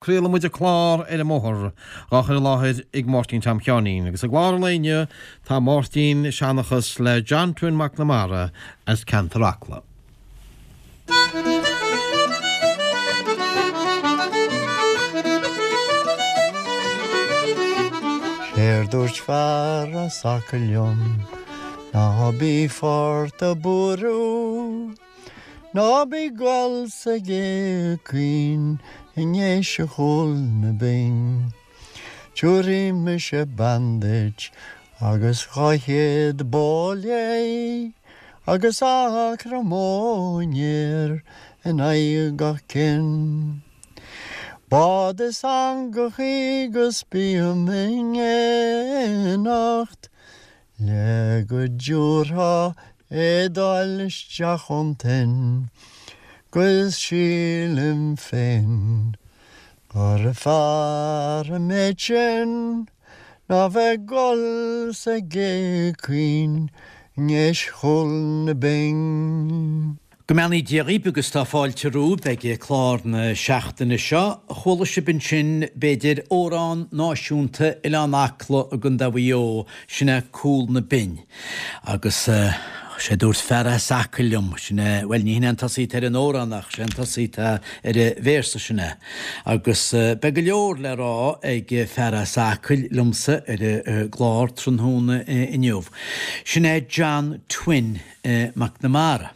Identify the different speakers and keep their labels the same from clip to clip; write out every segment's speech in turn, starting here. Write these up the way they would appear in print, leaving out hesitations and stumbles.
Speaker 1: Craolann muid an clár Ar an mBóthar, dhá chur i láthair ag Máirtín Tom Sheáinín. Agus i gclár an lae inniu tá Máirtín ag seanchas le John Twin Mac Namara as ceantar Acla.
Speaker 2: Séard dúirt fear as Acaill liom ná bí fort a' buaireamh. Ná bí ag gol sa gcé caoin i nDéise Chúl na Binn. Tiúrfaidh mise bean duit agus 200 bó léi agus acra móinéir in aghaidh gach cinn. Bád is eangachaí 'gus bím in éineacht Le go dtiúrfá éadáil isteach ón toinn 'Gus sílim féin gur fearr an méid sin Ná bheith ag gol sa gcé caoin i nDéis Chúl na Binn.
Speaker 3: Go mbeannaí Dia dhaoib agus tá fáilte romhaibh ag clár na seachtaine seo. Chuala sibh ansin, b'fhéidir, amhrán náisiúnta Oileán Acla i gContae Mhaigh Eo, sin é Cúl na Binn. Agus sé dúirt fear as Acaill liom, sin é, bhuel ní hin é an tosaí atá ar an amhrán ach sé an tosaí atá ar an véarsa sin é. Agus beidh go leor le rá ag fear as Acaill liomsa ar an gclár tráthnóna inniu. Sin é John Twin. Mac Namara.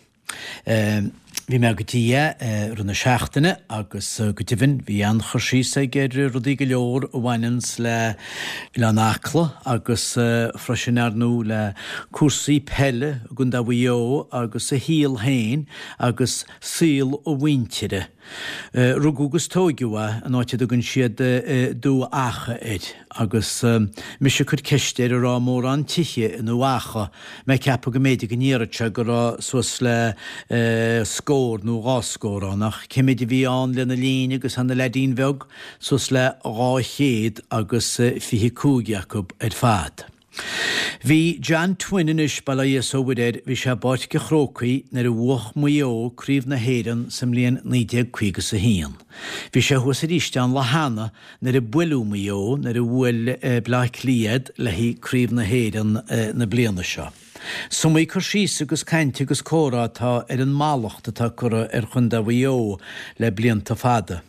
Speaker 3: Bhí mé go dtí é i rith na seachtaine agus go deimhin bhí an-chur síos aige ar rudaí go leor a bhaineanns le Oileán Acla agus freisin ar ndóigh le cúrsaí peile i gContae Mhaigh Eo agus a shaol féin agus saol a mhuintire. Rugadh agus tóigeadh é in áit a dtugann siad Dumha Acha air agus mise ag cur ceiste air an raibh mórán tithe i nDumha Acha, mé ag ceapadh go mb'fhéidir go ndéarfadh sé go raibh suas le scór nó dhá scór ann ach cé méid a bhí ann lena linn agus é ina leaidín bheag? Suas le 225 acu ar fad. Bhí John Twin anois, bail ó Dhia 's ó Mhuire air, bhí sé i bPáirc a' Chrócaigh nuair a bhuach Maigh Eo Craobh na hÉireann sa mbliain 1951. Bhí sé thuas arís an lá cheana nuair a buaileadh Maigh Eo, nuair a bhuail Bleá Cliath iad le haghaidh Craobh na hÉireann na bliana seo. Is iomaí cur síos agus caint agus comhrá atá ar an mallacht atá curtha ar Chontae Mhaigh Eo le blianta fada.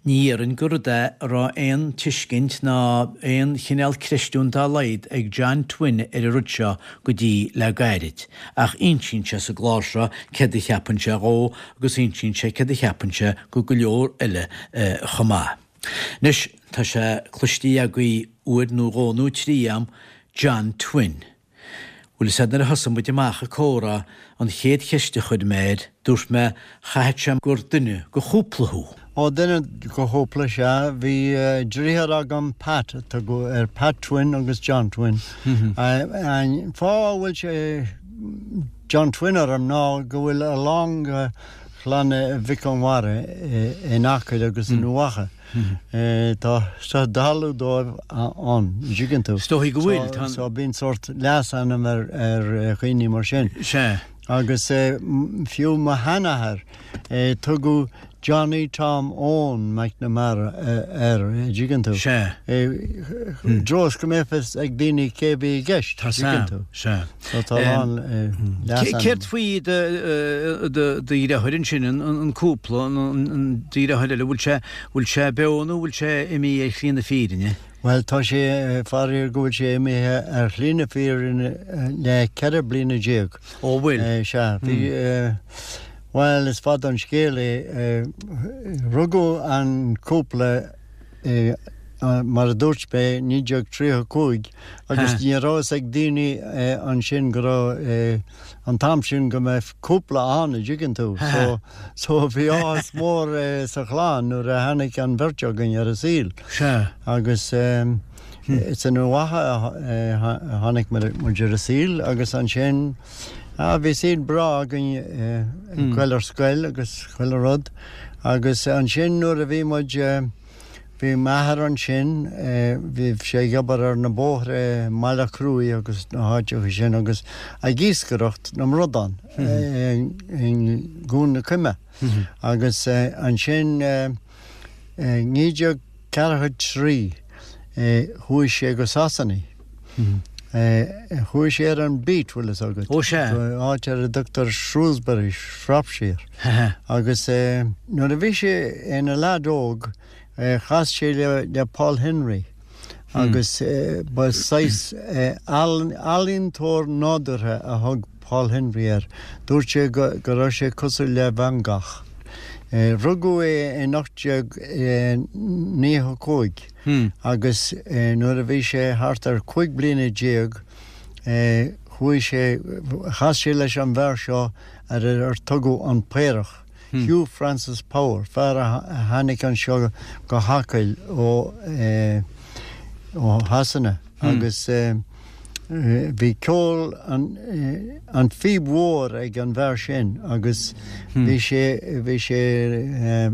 Speaker 3: Ní dhéarfainn gur rud é a raibh aon tuiscint ná aon chineál creistiúint dá laghad ag John Twin ar an rud seo go dtí le gairid, ach insíonn sé sa gclár seo céard a cheapann sé dhó agus insíonn sé céard a cheapann sé go go leor eile chomh maith. Anois, tá sé cloiste agaibh uair nó dhó nó trí a'm, John Twin. Bhfuil fhios a'd nuair a thosaigh muid amach ag comhrá, an chéad cheist a chuir mé air, dúirt mé, chaithfeadh sé gur duine go chúpla thú.
Speaker 2: Ó, duine go chúpla, sea. Bhí driotháir agam, Pat a tugadh air, Pat Twin agus John Twin. An fáth a bhfuil sé John Twin orm ná go bhfuil a lán de chlann Mhic Conmara in Acaill agus i nDumha Acha. Tá talamh dóibh ann, an dtuigeann tú.
Speaker 3: Is dóigh go bhfuil, tá.
Speaker 2: So bíonn sórt leasainm ar dhaoine mar sin.
Speaker 3: Sea.
Speaker 2: Agus fiú mo sheanathair, tugadh Johnny Tom Eoin McNamara air, an dtuigeann tú.
Speaker 3: Sea.
Speaker 2: I dtreo is go mbeadh fhios ag daoine cé a bhí i gceist, an dtuigeann tú.
Speaker 3: Sea.
Speaker 2: So tá a lán leasainm.
Speaker 3: Céard faoi do dheartháir ansin, an cúpla, an deartháir eile, bhfuil sé, bhfuil sé beo nó bhfuil sé imithe ar shlí na fírinne?
Speaker 2: Bhuel, tá sé, faraor go bhfuil sé imithe ar shlí na fírinne le 14 bliana.
Speaker 3: Ó, bhfuil?
Speaker 2: Sea, bhí, bhuel, is fada an scéal é. Rugadh an cúpla i, mar a dúirt mé, 1935 agus ní raibh fhios ag daoine ansin go raibh, an t-am sin go mbeadh cúpla ann, a dtuigeann tú. So, so bhí áthas mór sa chlann nuair a tháinig an bheirt againn ar an saol.
Speaker 3: Sea.
Speaker 2: Agus is i nDumha Acha a tháinig muid ar an saol agus ansin, ah, bhí saol breá againn ag goil ar scoil agus chuile rud. Agus ansin nuair a bhí muid, bhí m'athair ansin, bhí sé ag obair ar na bóithre i mBaile Chruaich agus na háiteacha sin agus ag iascaireacht na mbradán i gCuan na Coime. Agus ansin. 1943 chuaigh sé go Sasana. Chuaigh sé ar an beat, bhfuil fhios agat.
Speaker 3: Ó sea.
Speaker 2: Go áit ar a dtugtar Shrewsbury, Shropshire. Agus nuair a bhí sé ina leaid óg, Chas sé le Paul Henry agus ba saghas ealaíontóir nádúrtha a thug Paul Henry air. Dúirt sé go raibh sé cosúil le Van Gogh. Rugadh é in 1895 agus nuair a bhí sé thart ar 15 bliana chuaigh sé, chas sé leis an bhfear seo ar ar tugadh an Paorach. Hugh Francis Power, fear a tháinig anseo go hAcaill ó Shasana agus bhí ceol an phíb mhór ag an bhfear sin agus bhí sé bhí sé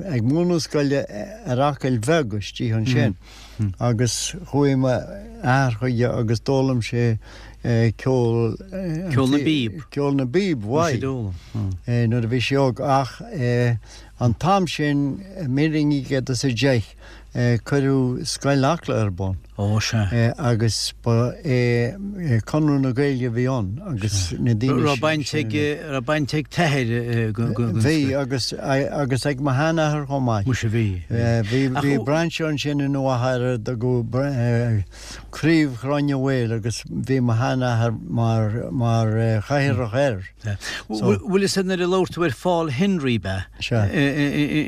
Speaker 2: ag múineadh scoile ar Acaill Bheag istigh ansin. Agus chuaigh m'athair chuige agus d'fhoghlaim sé ceol.
Speaker 3: Ceol na bpíob.
Speaker 2: Ceol na bpíob, uaidh. Nuair a bhí sé óg. Ach an t-am sin, 1910, cuireadh Scoil Acla ar bun.
Speaker 3: Ó, sea.
Speaker 2: Agus ba é Conradh na Gaeilge a bhí ann agus na daoine.
Speaker 3: Raibh baint ag, raibh baint ag t'athair go.
Speaker 2: Bhí agus, agus ag mo sheanathair chomh maith.
Speaker 3: Muise bhí.
Speaker 2: Bhí, bhí brainse ansin i nDumha ar a dtugadh Craobh Ghráinne Mhaol agus bhí mo sheanathair mar, mar chathaoirleach air.
Speaker 3: Bhfuil fhios a'd nuair a labhair tú ar Phaul Henry ab ea?
Speaker 2: Sea.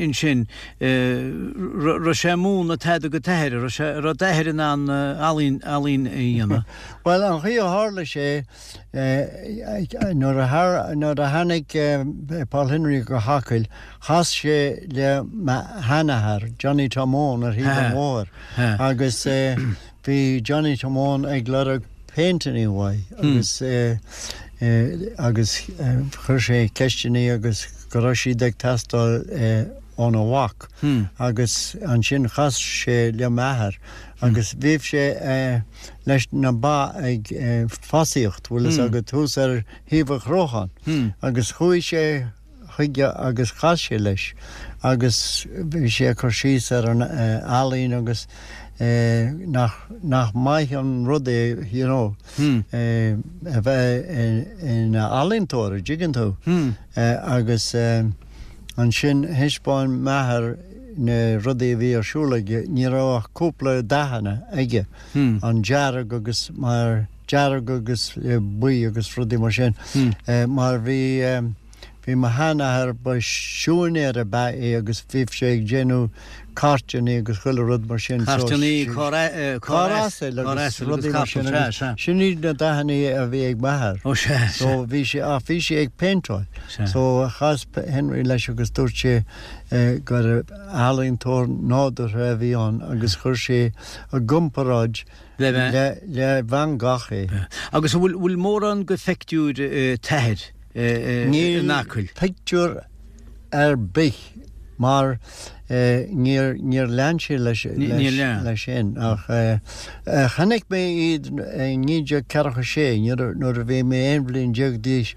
Speaker 3: Ansin, raibh sé ag múineadh tada do t'athair, raibh sé, raibh d'athair in ann ealaín, ealaín a dhéanamh?
Speaker 2: Bhuel, an chaoi a tharla sé, nuair a, nuair a tháinig Paul Henry go hAcaill, chas sé le m'sheanathair, Johnny Tom Eoin, ar thaobh an bhóthair agus bhí Johnny Tom Eoin ag lorg péinteanna uaidh agus agus chuir sé ceisteanna agus go raibh siad ag teastáil óna mhac agus ansin chas sé le m'athair agus bhíodh sé leis na ba ag fosaíocht, bhfuil fhios agat, thuas ar thaobh an Chrocháin agus chuaigh sé chuige agus chas sé leis agus bhí sé ag cur síos ar an ealaín agus nach nach maith an rud é you know a bheith ina ealaíontóir, an dtuigeann tú? Agus ansin thaispeáin m'athair na rudaí a bhí ar siúl aige, ní raibh ach cúpla dathanna aige, an dearg agus mar dearg agus buí agus rudaí mar sin, mar bhí, bhí mo sheanathair, ba siúinéir ab ea é agus bhíodh sé ag déanamh cairteanna agus chuile rud mar sin.
Speaker 3: Cairteanna, carr asail
Speaker 2: agus rudaí mar sin agus sin iad na dathanna a bhí ag m'athair.
Speaker 3: Ó sea, sea.
Speaker 2: So bhí sé, ach bhí sé ag péinteáil. So chas Henry leis agus dúirt sé gur ealaíontóir nádúrtha a bhí ann agus chuir sé i gcomparáid le Van Gogh é.
Speaker 3: Agus an bhfuil mórán de phictiúir t'athair in Acaill?
Speaker 2: Níl pictiúr ar bith mar níor níor lean sé leis sin ach chonaic mé iad i 1946 nuair a bhí mé 11 bhliain d'aois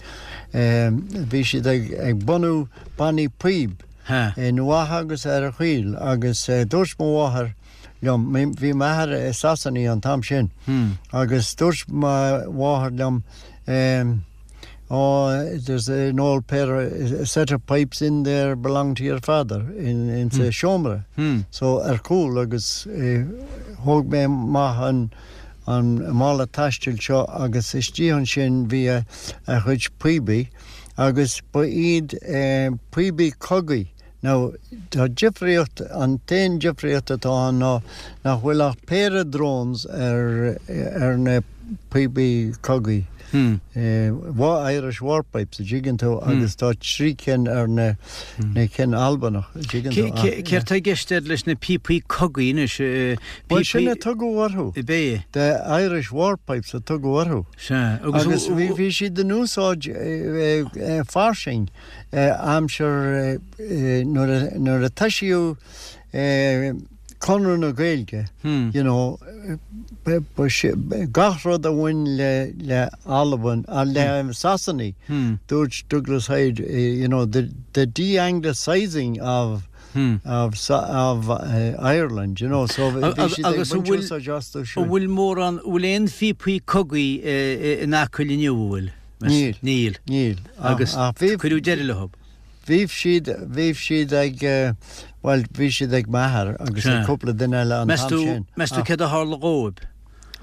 Speaker 2: bhí siad ag bunú bannaí píob i nDumha agus ar an Choill agus dúirt mo mháthair liom. Bhí m'athair i Sasana an t-am sin agus dúirt mo mháthair liom Oh, there's an old pair, a set of pipes in there belong to your father in, in sa seomra. So ar chúl agus thóg mé amach an an mála taistil seo agus istigh ansin bhí a a chuid píobaí agus ba iad píobaí cogaidh Now, tá difríocht, an t-aon difríocht atá ann ná nach bhfuil ach péire drones ar, ar na píobaí cogaidh, Irish War Pipes, a dtuigeann tú, agus tá 3 cinn ar na, na cinn Albanach, a dtuigeann tú.
Speaker 3: Céard tá i gceist air leis na píopaí cogaidh anois?
Speaker 2: Bhuel, sin a tugadh orthu.
Speaker 3: Ab é?
Speaker 2: The Irish War Pipes a tugadh orthu.
Speaker 3: Sea.
Speaker 2: Agus bhí siad in úsáid fairsing. aimsir nuair a toisíodh Conradh na Gaeilge, you know, gach rud a bhain le le Albain, le Sasanaigh, dúirt Douglas Hyde, you know, the de-Anglicising of. Of of Ireland, you know, so bhí siad ag baint úsáid astu
Speaker 3: sin. An bhfuil mórán, an bhfuil aon phíopaí cogaidh in Acaill inniu, an bhfuil?
Speaker 2: Níl.
Speaker 3: Níl.
Speaker 2: Níl.
Speaker 3: Agus cuireadh deireadh leo.
Speaker 2: Bhí siad, bhí siad ag, bhuel, bhí siad ag m'athair agus ag cúpla duine eile an t-am sin.
Speaker 3: Meas tú céard a tharla dhóibh?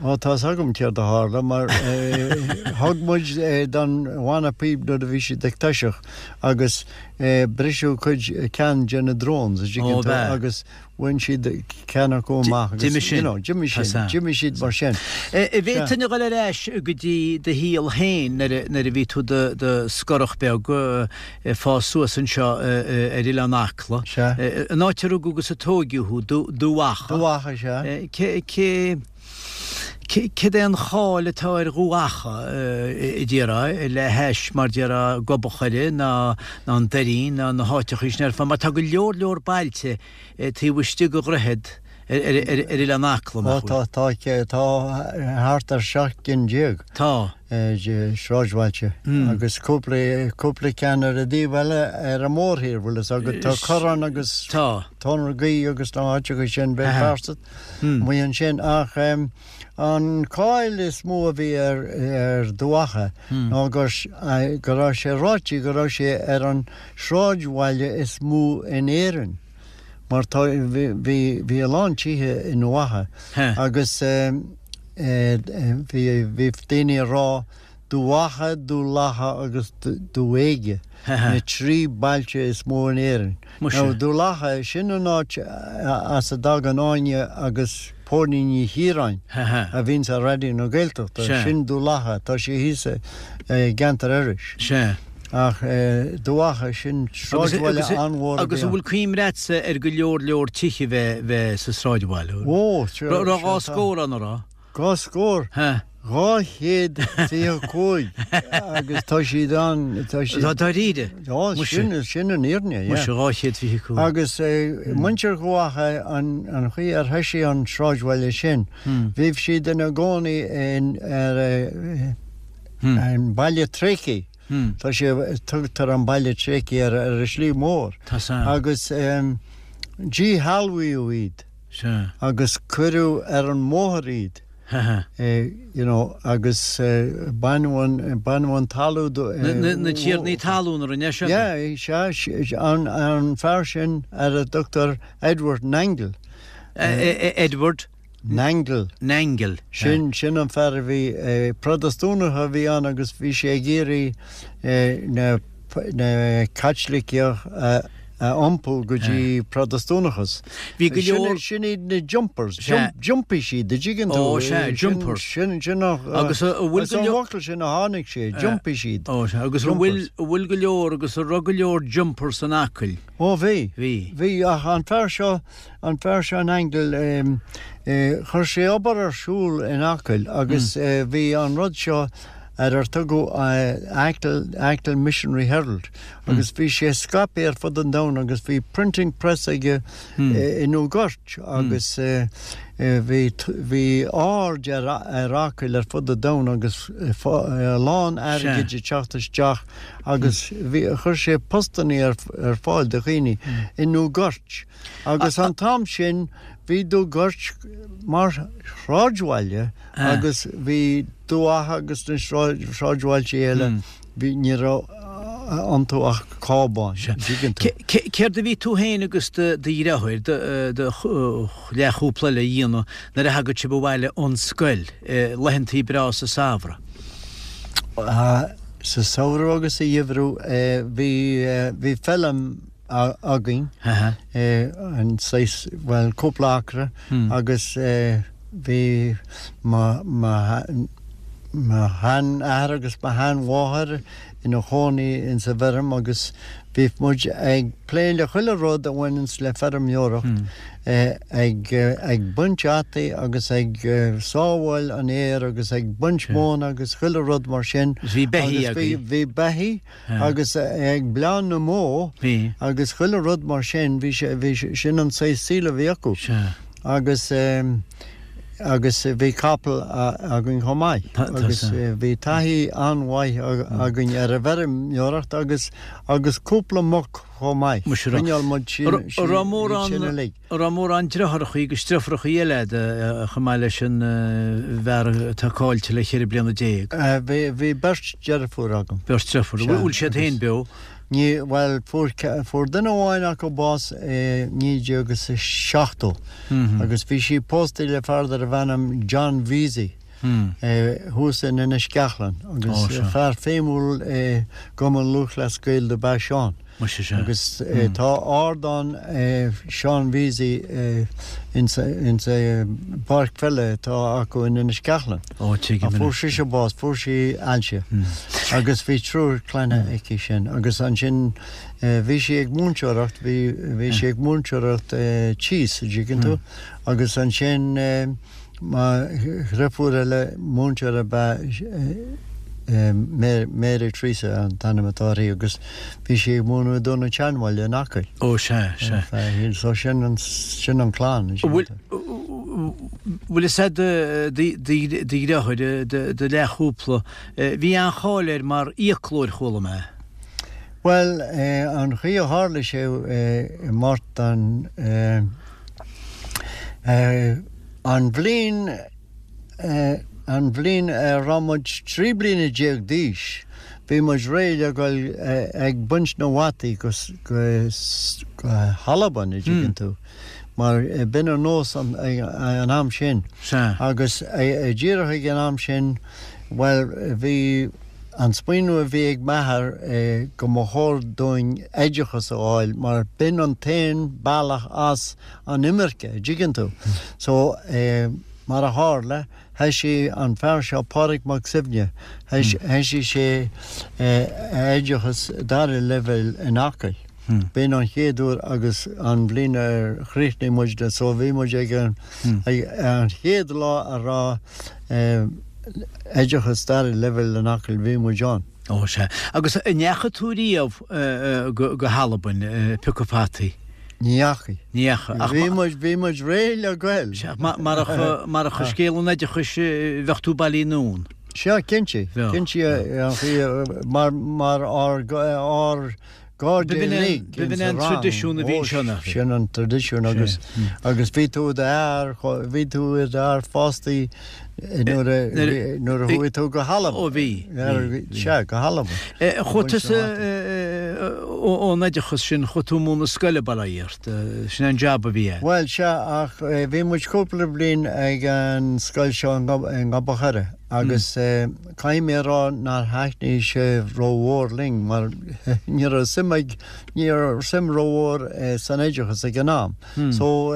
Speaker 2: Ó, tá's agam céard a tharla, mar thug muid don bhanna píob nuair a bhí siad ag toiseacht agus briseadh cuid, ceann de na drones, an dtuigeann tú, agus bhain siad ceann acu amach agus, you know, d'imigh sin, d'imigh siad mar sin.
Speaker 3: An bhféadfainn a dhul ar ais go dtí do shaol féin nuair a bhí tú i do scorach beag ag fás suas anseo ar Oileán Acla, an áit a rugadh agus a tóigeadh thú, Dubh Acha.
Speaker 2: Dubh Acha, sea.
Speaker 3: Cé, cé, céard é an cháil atá ar Dhubh Acha, a déarfá, le hais, mar déarfá, Gob an Choire ná, ná an Doirín ná na háiteachaí sin ar fad, mar tá go leor leor bailte taobh istigh de dhroichead ar, ar, ar, ar Oileán Acla,
Speaker 2: nach bhfuil? Ó, tá, tá, tá thart ar 17 gcinn.
Speaker 3: Tá.
Speaker 2: sráidbhailte agus cúpla, cúpla ceann ar an dtaobh eile ar an mórthír, bhfuil fhios agat, tá Corrán agus
Speaker 3: Tá.
Speaker 2: Tóin na Gaoithe agus na háiteacha sin, Béal Feirste amuigh ansin ach an cáil is mó a bhí ar, ar Dhubh Acha ná gur, go raibh sé ráite go raibh sé ar an sráidbhaile is mó in Éirinn mar tá, bhí, bhí, bhí a lán tithe i nDubh Acha agus. Bhí daoine ag rá Dubh Acha, Dubh Lacha agus Dubh Éige, na trí bailte is mó in Éirinn. Now Dubh Lacha, sin an áit as a dtagann Áine agus Póilín Ní Chiaráin a bhíonns ar Raidió na Gaeltachta, sin Dubh Lacha, tá sé thíos i gceantar Iorrais. Ach Dubh Acha, sin sráidbhaile an-mhór a bhí ann.
Speaker 3: Agus an bhfuil cuimhne agatsa ar go leor leor tithe bheith bheith sa sráidbhaile?
Speaker 2: Ó, sea.
Speaker 3: Raibh dhá scór ann, an raibh?
Speaker 2: Dhá scór?
Speaker 3: Ha.
Speaker 2: 225 agus tá siad ann, tá siad.
Speaker 3: Tá dáiríre?
Speaker 2: Ó, sin, sin an fhírinne, yeah.
Speaker 3: Muise, 225.
Speaker 2: Agus muintir Dhubh Acha, an an chaoi ar thoisigh an sráidbhaile sin, bhí siad ina gcónaí in ar an Baile Tréigthe. Tá sé, tugtar an Baile Tréigthe air ar an slí mhór.
Speaker 3: Tá san.
Speaker 2: Agus díshealbhaíodh iad.
Speaker 3: Sea.
Speaker 2: Agus cuireadh ar an mbóthar iad. You know, agus baineadh an, baineadh an talamh do.
Speaker 3: Na tiarnaí talún a rinne
Speaker 2: seo? Yeah, sea, an, an fear sin ar a dtugtar Edward Nangle.
Speaker 3: Edward?
Speaker 2: Nangle.
Speaker 3: Nangle.
Speaker 2: Sin, sin an fear a bhí, Protastúnach a bhí ann agus bhí sé ag iarraidh na, na Caitlicigh a, a iompú go dtí Protastúnachas.
Speaker 3: Bhí go leor.
Speaker 2: Sin, sin iad na jumpers. Jump, d'iompaigh siad, an dtuigeann tú.
Speaker 3: Ó, sea, jumpers.
Speaker 2: Sin, sin an,
Speaker 3: Agus a bhfuil
Speaker 2: go leor. As an bhfocal sin a tháinig sé, d'iompaigh siad.
Speaker 3: Ó, sea, agus an bhfuil, an bhfuil go leor agus an raibh go leor jumpers in Acaill?
Speaker 2: Ó, bhí.
Speaker 3: Bhí.
Speaker 2: Bhí, ach an fear seo, An fear seo Nangle, chuir sé obair ar siúl in Acaill agus bhí an rud seo ar ar tugadh Achill, Achill Missionary Herald agus bhí sé scaipthe ar fud an domhain agus bhí printing press aige i nDumha Goirt agus bhí, bhí aird ar, ar Acaill ar fud an domhain agus a lán airgid ag teacht isteach agus bhí, chuir sé postannaí ar, ar fáil do dhaoine i nDumha Goirt. Agus an t-am sin bhí Dubh Goirt mar shráidbhaile agus bhí Dubh Acha agus na sráidbhailte eile, bhí, ní raibh iontu ach cábáin, an dtuigeann
Speaker 3: tú. Céard a bhí tú féin agus do dheartháir, do leathchúpla eile a dhéanamh nuair a thagadh sibh abhaile ón scoil, laethantaí breá sa samhradh?
Speaker 2: Sa samhradh agus sa gheimhreadh bhí, bhí feilm, againn, an saghas, bhuel, cúpla acra agus bhí mo sheanathair agus mo sheanmháthair ina chónaí insa bhfeirm agus bhí muid ag plé le chuile rud a bhaineanns le feirmeoireacht, ag baint fhataí agus ag sábháil an fhéir agus ag baint móna agus chuile rud mar sin.
Speaker 3: Bhí beithígh
Speaker 2: agaibh. Bhí beithígh agus ag bleán na mbó agus chuile rud mar sin, bhí sé, bhí, sin an saghas saoil a bhí acu. Agus. Agus bhí capall againn chomh maith. Agus bhí taithí an-mhaith againn ar an bhfeirmeoireacht agus agus cúpla muc chomh maith. Choinneáil muid sin sin
Speaker 3: uilig. An raibh mórán deartháireachaí agus deirfiúrachaí eile agat chomh maith leis an bhfear atá caillte le 14 bliana?
Speaker 2: Bhí beirt deirfiúr agam.
Speaker 3: Beirt deirfiúr. Bhfuil siad féin beo?
Speaker 2: Ní, bhuel, fuair, fuair duine amháin acu bás i 1970 agus bhí sí pósta le fear darbh ainm John Veasey thuas in Inis Ceachlann agus fear feidhmiúil i gCumann Lúthchleas Gael dob ea Seán. Agus tá ardán Seán Veasey insa bpáirc pheile atá acu in Inis Ceachlann.
Speaker 3: Ó, tuigim
Speaker 2: anois. Fuair sise bás, fuair sí ailse agus bhí triúr clainne aici sin agus ansin bhí sí ag múinteoireacht, bhí, bhí sí ag múinteoireacht tíos, an dtuigeann tú, agus ansin mo dhriofúr eile, múinteoir ab ea Mary Teresa an t-ainm atá uirthi agus bhí sí ag múineadh i dTóin an tSeanbhaile in Acaill.
Speaker 3: Ó, sea, sea.
Speaker 2: So sin an, sin an clann, an
Speaker 3: dtuigeann tú. Bhfuil fhios a'd do dheartháir, do leathchúpla, bhí an-cháil air mar fhiaclóir, chuala mé.
Speaker 2: Bhuel, an chaoi a tharla sé, a Mháirtín, an bhliain, an bhliain a raibh muid 13 bliana d'aois, bhí muid réidh le dhul ag baint na bhfataí go hAlbain, an dtuigeann tú. mar b'in an nós an am sin.
Speaker 3: Sea.
Speaker 2: Agus díreach ag an am sin, bhuel, bhí an smaoineamh a bhí ag m'athair go mba chóir dúinn oideachas a fháil mar b'in an t-aon bealach as an imirce, an dtuigeann tú. So, mar a tharla, Thoisigh an fear seo, Pádraig Mac Suibhne, thoisigh sé a oideachas dara leibhéal in Acaill. B'in an chéad uair agus an bhliain ar chríochnaigh muid so bhí muid ag an chéad lá a raibh oideachas dara leibhéal in Acaill, bhí muid ann.
Speaker 3: Ó sea. Agus an ndeachaigh tú riamh go hAlbain ag piocadh fataí?
Speaker 2: Ní dheachaigh.
Speaker 3: Ní dheachaigh. Ach
Speaker 2: bhí muid, bhí muid réidh le goil.
Speaker 3: Sea, marach, marach scéal an oideachais bheadh tú bailithe anonn.
Speaker 2: Sea, cinnte. Bheadh. Cinnte, an chaoi, mar, mar ár, ár gcairde uilig
Speaker 3: B'in é an traidisiún a bhí anseo, nach
Speaker 2: bhí? Sin an traidisiún agus, agus bhí tú i d'fhear, bhí tú i d'fhear fásta nuair a, nuair a chuaigh tú go hAlbain.
Speaker 3: Ó bhí.
Speaker 2: Sea, go hAlbain.
Speaker 3: Chuaigh tusa ón oideachas sin, chuaigh tú ag múineadh scoile, bail ó Dhia ort. Sin é an jab a bhí
Speaker 2: agat. Bhuel, sea, ach bhí muid cúpla bliain ag an scoil seo i nGob an Choire agus caithfidh mé a rá nár thaitnigh sé rómhór linn mar ní raibh suim ag, ní raibh suim rómhór san oideachas ag an am. So,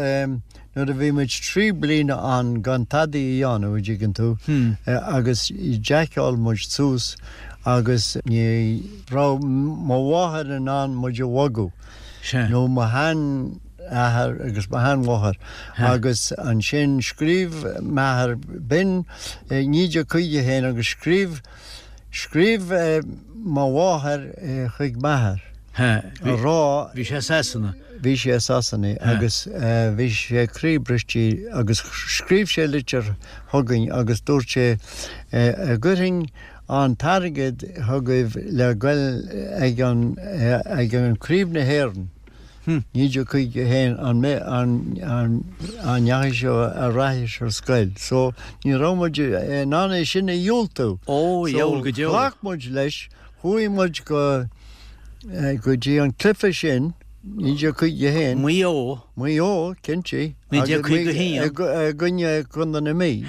Speaker 2: Nuair a bhí muid 3 bliana ann gan tadaí a dhéanamh, an dtuigeann tú, agus jaiceáil muid suas agus ní raibh mo mháthair in ann muid a bhogadh, nó mo sheanathair agus mo sheanmháthair, agus ansin scríobh m'athair, b'in 1951 agus scríobh, Scríobh mo mháthair chuig m'athair a rá.
Speaker 3: Bhí sé i Sasana.
Speaker 2: Bhí sé i Sasana agus bhí sé croíbhriste agus scríobh sé litir chugainn agus dúirt sé an gcuirfinn an t-airgead chugaibh le goil ag an Craobh na hÉireann. 1951 an an ndeachaigh sibh ar ais ar scoil so ní raibh muid in ann é sin a dhiúltú.
Speaker 3: Ó, dheabhail go
Speaker 2: deo. So ghlac muid leis, chuaigh muid go go dtí an cluiche sin, 1951.
Speaker 3: Maigh Eo.
Speaker 2: Maigh Eo, cinnte.
Speaker 3: 1951.
Speaker 2: I gcoinne Contae na Mí.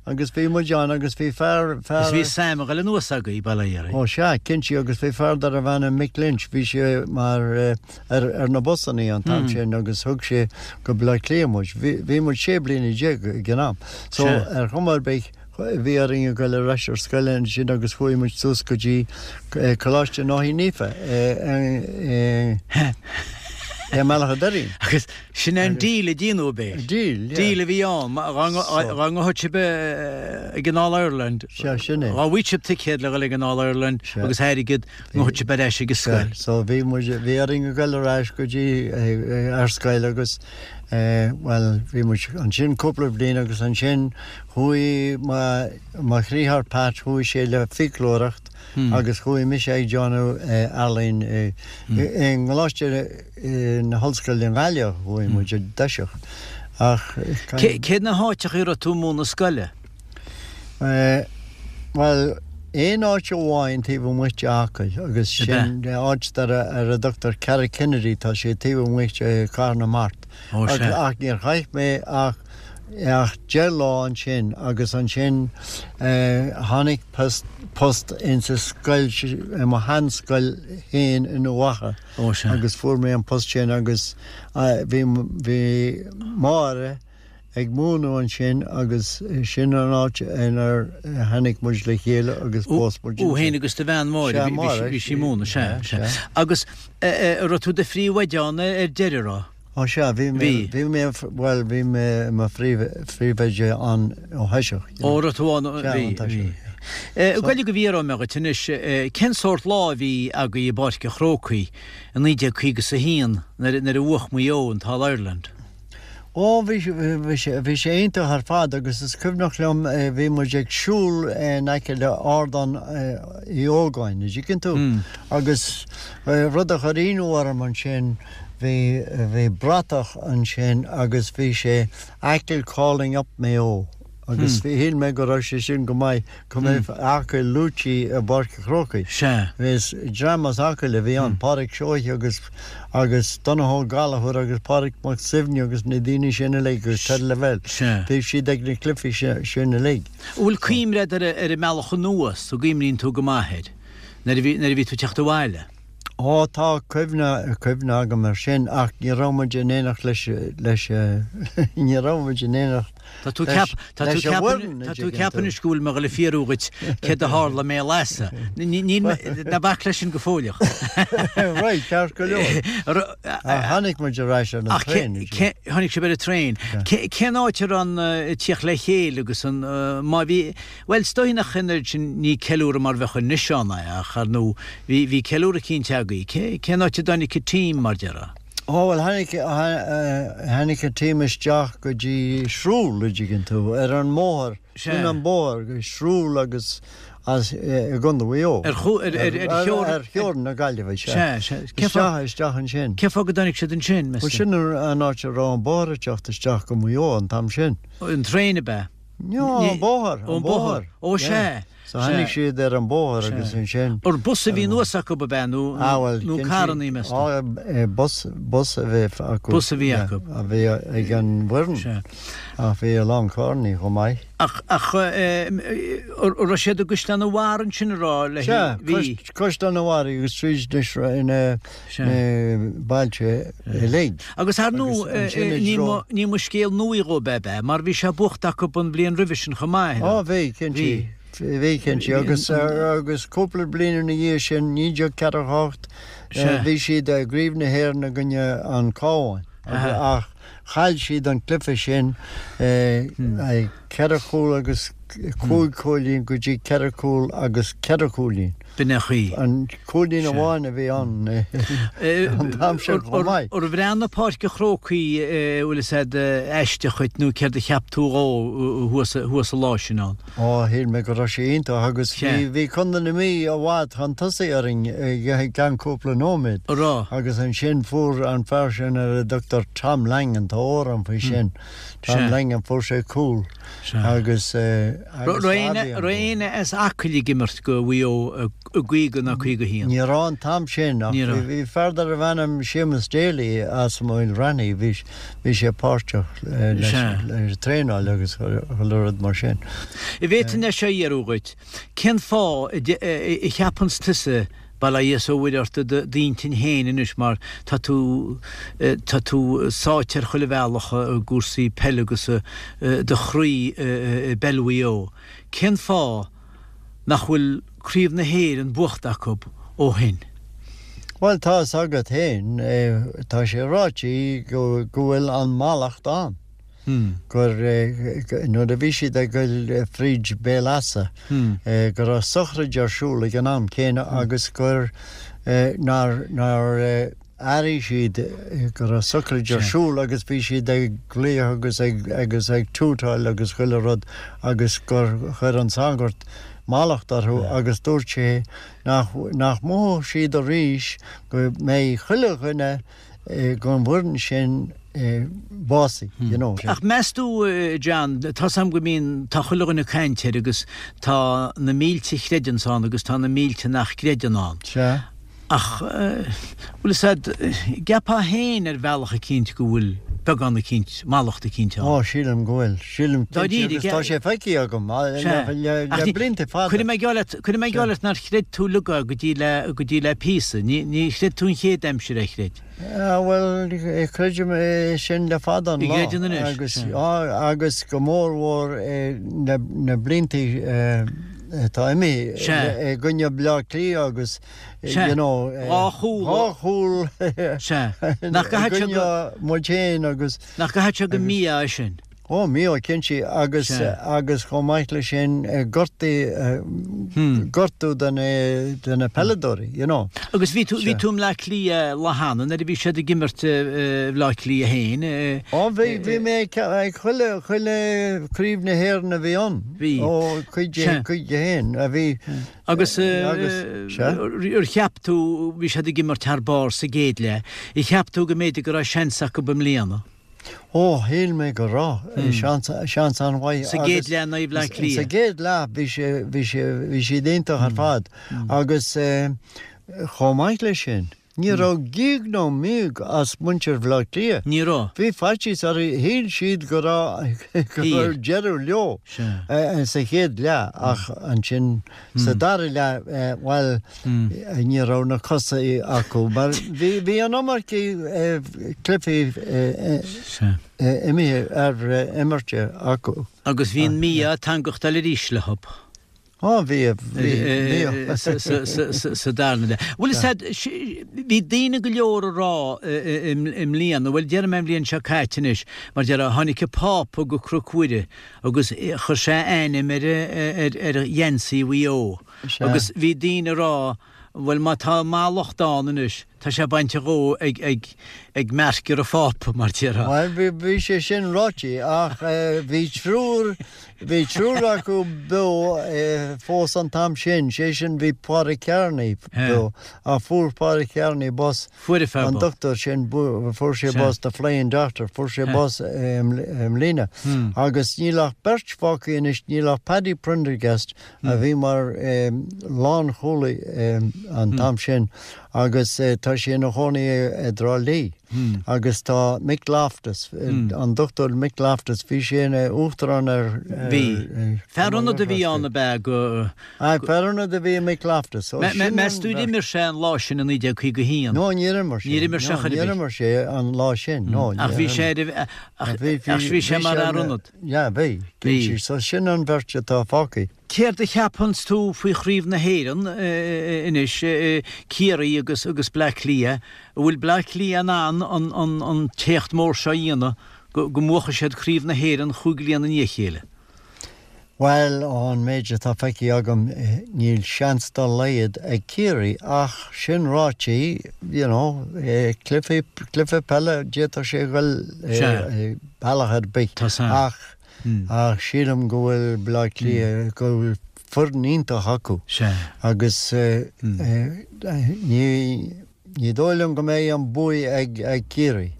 Speaker 2: Agus bhí muid ann agus bhí fear,
Speaker 3: fear. Agus bhí Sam ag dul anuas agaibh, bail ó Dhia air.
Speaker 2: Ó sea, cinnte, agus bhí fear darbh ainm Mick Lynch, bhí sé mar, ar, ar na busannaí an t-am sin agus thug sé go Baile Átha Cliath muid. Bhí, bhí muid 16 bliana ag an am. So, ar chuma ar bith, bhí orainn a ghoil ar ais ar scoil ansin agus chuaigh muid suas go dtí Coláiste Náithí Naofa i i mBealach a' Doirín.
Speaker 3: Agus sin é an deal a déanadh ab é?
Speaker 2: Deal, yeah.
Speaker 3: Deal a bhí ann. Dá ngabhfadh sibh ag an All Ireland.
Speaker 2: Sea, sin é.
Speaker 3: Dá bhfaigheadh sibh ticéad le dhul ag an All Ireland agus airgead, ngabhfadh sibh ar ais ag an scoil.
Speaker 2: So bhí muid, bhí orainn a ghoil ar ais go dtí ar scoil agus. Bhuel, bhí muid ansin cúpla bliain agus ansin chuaigh mo dhriotháir Pat, chuaigh sé le fiaclóireacht agus chuaigh mise ag déanamh ealaín i gColáiste na hOllscoile i nGaillimh, chuaigh muid i dtoiseach.
Speaker 3: Ach. Cé na háiteacha a raibh tú ag múineadh scoile?
Speaker 2: Bhuel, aon áit amháin taobh amuigh de Acaill agus sin áit ar a dtugtar Carrick Kennedy, tá sé taobh amuigh de Chathair na Mart. Ach níor chaith mé ach ach 10 lá ansin agus ansin tháinig post insa scoil, i mo sheanscoil féin in Uíbh Eachach agus fuair mé an post sin agus bhí bhí Máire, ag múineadh ansin agus sin an áit inar tháinig muid le chéile agus phós
Speaker 3: muid ansin. Thú féin agus do bhean Máire, bhí sí ag múineadh, sea, sea. Agus an raibh tú i do phríomhoide ann ar deireadh, raibh?
Speaker 2: Ó sea, bhí mé, bhí mé, bhuel, bhí mé i mo phríomhoide ann ó thoiseach.
Speaker 3: Ó, raibh tú ann, bhí, bhí. Ag goil go bhfiafróidh mé dhuit anois, cén sórt lá a bhí agaibh i bPáirc an Chrócaigh i 1951 nuair a bhuach Maigh Eo an tAll Ireland?
Speaker 2: Ó, bhí, bhí sé, bhí sé iontach ar fad agus is cuimhneach liom bhí muid ag siúl in aice le Ardán Uí Ógáin, an dtuigeann tú? Agus rud a chuir ionadh orm ansin, bhí, bhí bratach ansin agus bhí sé Achill calling up Mayo agus shíl mé go raibh sé sin go maith go mbeadh Acaill luaite i bPáirc an Chrócaigh.
Speaker 3: Sea.
Speaker 2: Is dream as Acaill a bhí ann, Pádraic Seoighe agus agus Donnchadh Ó Gallchóir agus Pádraic Mac Suibhne agus na daoine sin uilig agus Ted Lavelle.
Speaker 3: Sea.
Speaker 2: Bhí siad ag na cluichí sin uilig.
Speaker 3: An bhfuil cuimhne agat ar ar an mbealach anuas, an gcuimhníonn tú go maith air, nuair a bhí nuair a bhí tú ag teacht abhaile?
Speaker 2: Ó tá cuimhne, cuimhne agam air sin ach ní raibh muid in éineacht leis, leis, ní raibh muid in éineacht
Speaker 3: Tá tú leis, tá tú leis an bhfoireann, tá tú ag ceapadh anois go bhfuil mé ag dul a fhiafraí dhuit céard a tharla i mBéal Easa. Níl mé, ná bac leis sin go fóilleach.
Speaker 2: Right, ceart go leor. Ach tháinig muid ar ais ar an traein.
Speaker 3: Tháinig sibh ar an traein. Cén áit a raibh an tíocht le chéile agus an, má bhí, Bhuel, is dóigh nach an oiread sin, ní ceiliúradh mar bheadh anois ann é, ach ar ndóigh, bhí, bhí ceiliúradh cinnte agaibh. Cé, cén áit a dtáinig an team, mar déarfá?
Speaker 2: Ó, bhuel, tháinig, tháinig an team isteach go dtí Shrule, a dtuigeann tú, ar an mbóthar, sin an bóthar, go Shrule agus as, i gContae Mhaigh Eo.
Speaker 3: Ar chú, ar, ar,
Speaker 2: ar theorainn. Ar theorainn na Gaillimhe,
Speaker 3: sea. Sea, sea.
Speaker 2: Cé fáth. Isteach, isteach ansin.
Speaker 3: Cén fáth go dtáinig siad ansin,
Speaker 2: meas tú? Bhuel, sin an áit a raibh an bóthar ag teacht isteach go Maigh Eo an t-am sin.
Speaker 3: An traein, ab ea?
Speaker 2: No, an bóthar, an
Speaker 3: bóthar. Ó, sea.
Speaker 2: So tháinig siad ar an bóthar agus ansin.
Speaker 3: Ar bus a bhí anuas acu ab ea nó nó carrannaí meas tú?
Speaker 2: Á, bus, bus a bhí acu.
Speaker 3: Bus a bhí acu.
Speaker 2: A bhí ag an bhfoireann.
Speaker 3: Sea.
Speaker 2: Ach bhí a lán carrannaí chomh maith.
Speaker 3: Ach, ach, an raibh siad i gCaisleán an Bharraigh ansin a raibh
Speaker 2: le Sea, bhí. Caisleán an Bharraigh agus tríd na na bailte uilig.
Speaker 3: Agus ar ndóigh, ní mba scéal nua dhóibh ab ea, mar bhí sé buachta acu an bhliain roimhe sin chomh maith.
Speaker 2: Ó bhí, cinnte. Bhí, cinnte. Agus, agus cúpla bliain ina dhiaidh sin, 1948, bhí siad i gCraobh na hÉireann i gcoinne an Cabhán. Ach chaill siad an cluiche sin ceithre chúl agus cúig chúilín go dtí ceithre chúl agus ceithre chúilín.
Speaker 3: B'in é an chaoi.
Speaker 2: An cúilín amháin a bhí ann an t-am sin chomh maith.
Speaker 3: Ar bhreathnaigh Páirc an Chrócaigh bhfuil fhios a'd aisteach dhuit nó céard a cheap tú dhó thuas an lá sin ann?
Speaker 2: Ó, shíl mé go raibh sé iontach agus bhí, bhí Contae na Mí i bhfad chun tosaigh orainn i gceann cúpla nóiméad.
Speaker 3: An raibh?
Speaker 2: Agus ansin fuair an fear sin ar a dtugtar Tom Langan, tá amhrán faoi sin, Tom Langan, fuair sé cúl agus,
Speaker 3: agus Raibh éinne as Acaill ag imirt go Mhaigh Eo i gcaoga ná 51?
Speaker 2: Ní raibh an t-am sin ach bhí fear darbh ainm Séamus Daly as Maoil Raithní, bhí bhí sé páirteach leis an traenáil agus chuile rud mar sin.
Speaker 3: An bhféadfainn é seo a fhiafraí dhuit, cén fáth a cheapanns tusa, bail ó Dhia is ó Mhuire ort i d'intinn féin anois mar tá tú tá tú sáite ar chuile bhealach i gcúrsaí peile agus do chroí i bpeil Mhaigh Eo, cén fáth nach bhfuil Craobh na hÉireann buachta acu ó shin?
Speaker 2: Bhuel, tá fhios agat féin, tá sé ráite go bhfuil an mallacht ann, gur nuair a bhí siad ag goil fríd Béal Easa, go raibh sochraid ar siúl ag an am céanna agus gur nár, nár. airigh siad go raibh socraid ar siúl agus bhí siad ag glaoch agus ag agus ag tútáil agus chuile rud agus gur chuir an sagart mallacht orthu agus dúirt sé nach nach mothódh siad arís go mbeidh chuile dhuine gon bhfoireann sin básaithe, you know.
Speaker 3: Ach meas tú, John, tá's a'm go mbíonn, tá chuile dhuine ag caint air agus tá na mílte a chreideanns ann agus tá na mílte nach gcreideann ann.
Speaker 2: Sea.
Speaker 3: Ach, bhfuil fhios a'd, gceapfá féin ar bhealach eicínt go bhfuil beagán eicínt, mallacht eicínt ann.
Speaker 2: Ó, sílim go bhfuil. Sílim cinnte agus tá sé feicthe agam le blianta fada.
Speaker 3: Cuirfidh mé geall leat, cuirfidh mé geall leat nár chreid tú uilig é go dtí le, go dtí le píosa. Ní, ní chreid tú an chéad aimsir é, chreid?
Speaker 2: Bhuel, creidim é sin le fada an lá.
Speaker 3: Gcreideann anois.
Speaker 2: Agus, agus go mór mhór na, na blianta atá imithe i gcoinne Bleá Cliath agus, you know,
Speaker 3: dhá chúl,
Speaker 2: dhá chúl i gcoinne muid féin agus.
Speaker 3: Nach gcaithfidh sé gur mí-ádh é sin?
Speaker 2: Ó, mí-ádh cinnte agus agus chomh maith leis sin gortaí gortú de na de na peileadóirí, you know.
Speaker 3: Agus bhí tú bhí tú i mBleá Cliath lá cheana nuair a bhí siad ag imirt Bhleá Cliath féin.
Speaker 2: Ó bhí bhí mé ag chuile chuile craobh na hÉireann a bhí ann.
Speaker 3: Bhí.
Speaker 2: Ó 51 a bhí.
Speaker 3: Agus ar cheap tú, bhí siad ag imirt thar barr sa gcéad leath, ar cheap tú go mb'fhéidir go raibh seans acu i mbliana?
Speaker 2: Ó, shíl mé go raibh seans, seans an-mhaith.
Speaker 3: Sa gcéad leath in aghaidh Bhleá Cliath.
Speaker 2: Sa gcéad leath bhí sé, bhí sé, bhí siad iontach ar fad agus chomh maith leis sin, ní raibh gíog ná míog as muintir Bhleá Cliath.
Speaker 3: Ní raibh.
Speaker 2: Bhí faitíos orthu, shíl siad go raibh, go raibh deireadh leo sa chéad leath ach ansin Sa dara leath, bhuel, ní raibh na cosa acu mar bhí an iomarca cluichí imithe ar imirte acu.
Speaker 3: Agus bhí an mí-ádh ag teangachtáil arís leo.
Speaker 2: Ó, bhí, bhí.
Speaker 3: Sa darna leath. Bhuel, is ea, bhí daoine go leor ag rá i mbliana, bhuel, déarfaidh mé an bhliain seo caite anois, mar déarfá, tháinig an Pápa go Cnoc Mhuire Agus chuir sé a ainm ar ar gheansaí Mhaigh Eo. Agus bhí daoine ag rá, bhuel má tá mallacht ann anois, tá sé bainte dhó ag ag ag meircir an Phápa, mar déarfá.
Speaker 2: Bhuel, bhí bhí sé sin ráite ach bhí triúr bhí triúr acu beo fós an t-am sin, sé sin bhí Pádraig Kearney beo ach fuair Pádraig Kearney bás
Speaker 3: Fuair fear
Speaker 2: An dochtúir sin, fuair sé bás, the flying doctor, fuair sé bás i mbliana. Agus níl ach beirt fágtha anois, níl ach Paddy Prendergast a bhí mar lánchúlaí an t-am sin agus tá sé ina chónaí i dTrá Lí. Agus tá Mick Loftus, an dochtúir Mick Loftus, bhí sé ina uachtarán ar.
Speaker 3: Bhí. Fear ionaid a bhí ann ab ea go.
Speaker 2: Aye, fear ionaid a bhí i Mick Loftus.
Speaker 3: Ó, sin Meas tú ar imir sé an lá sin i 1951?
Speaker 2: No, níor imir sé.
Speaker 3: Níor imir sé chor ar bith.
Speaker 2: Níor imir sé an lá sin, no.
Speaker 3: Ach bhí sé ar, ach bhí sé mar fhear ionaid.
Speaker 2: Yeah, bhí. Bhí. So sin an bheirt atá fágtha.
Speaker 3: Céard a cheapanns tú faoi Chraobh na hÉireann anois, Ciarraí agus agus Bleá Cliath? An bhfuil Bleá Cliath in ann an an an t-éacht mór seo a dhéanamh go go mbuafaidh siad Craobh na hÉireann chúig bliana i ndiaidh a chéile?
Speaker 2: Bhuel, ón méid atá feicthe agam, níl seans dá laghad ag Ciarraí ach sin ráite, you know, cluiche, cluiche peile, d'fhéadfadh sé a dhul bealach ar bith ach, ach sílim go bhfuil Bleá Cliath, go bhfuil foireann iontach acu agus ní, Ní dóigh liom go mbeidh an buaidh ag Ciarraí.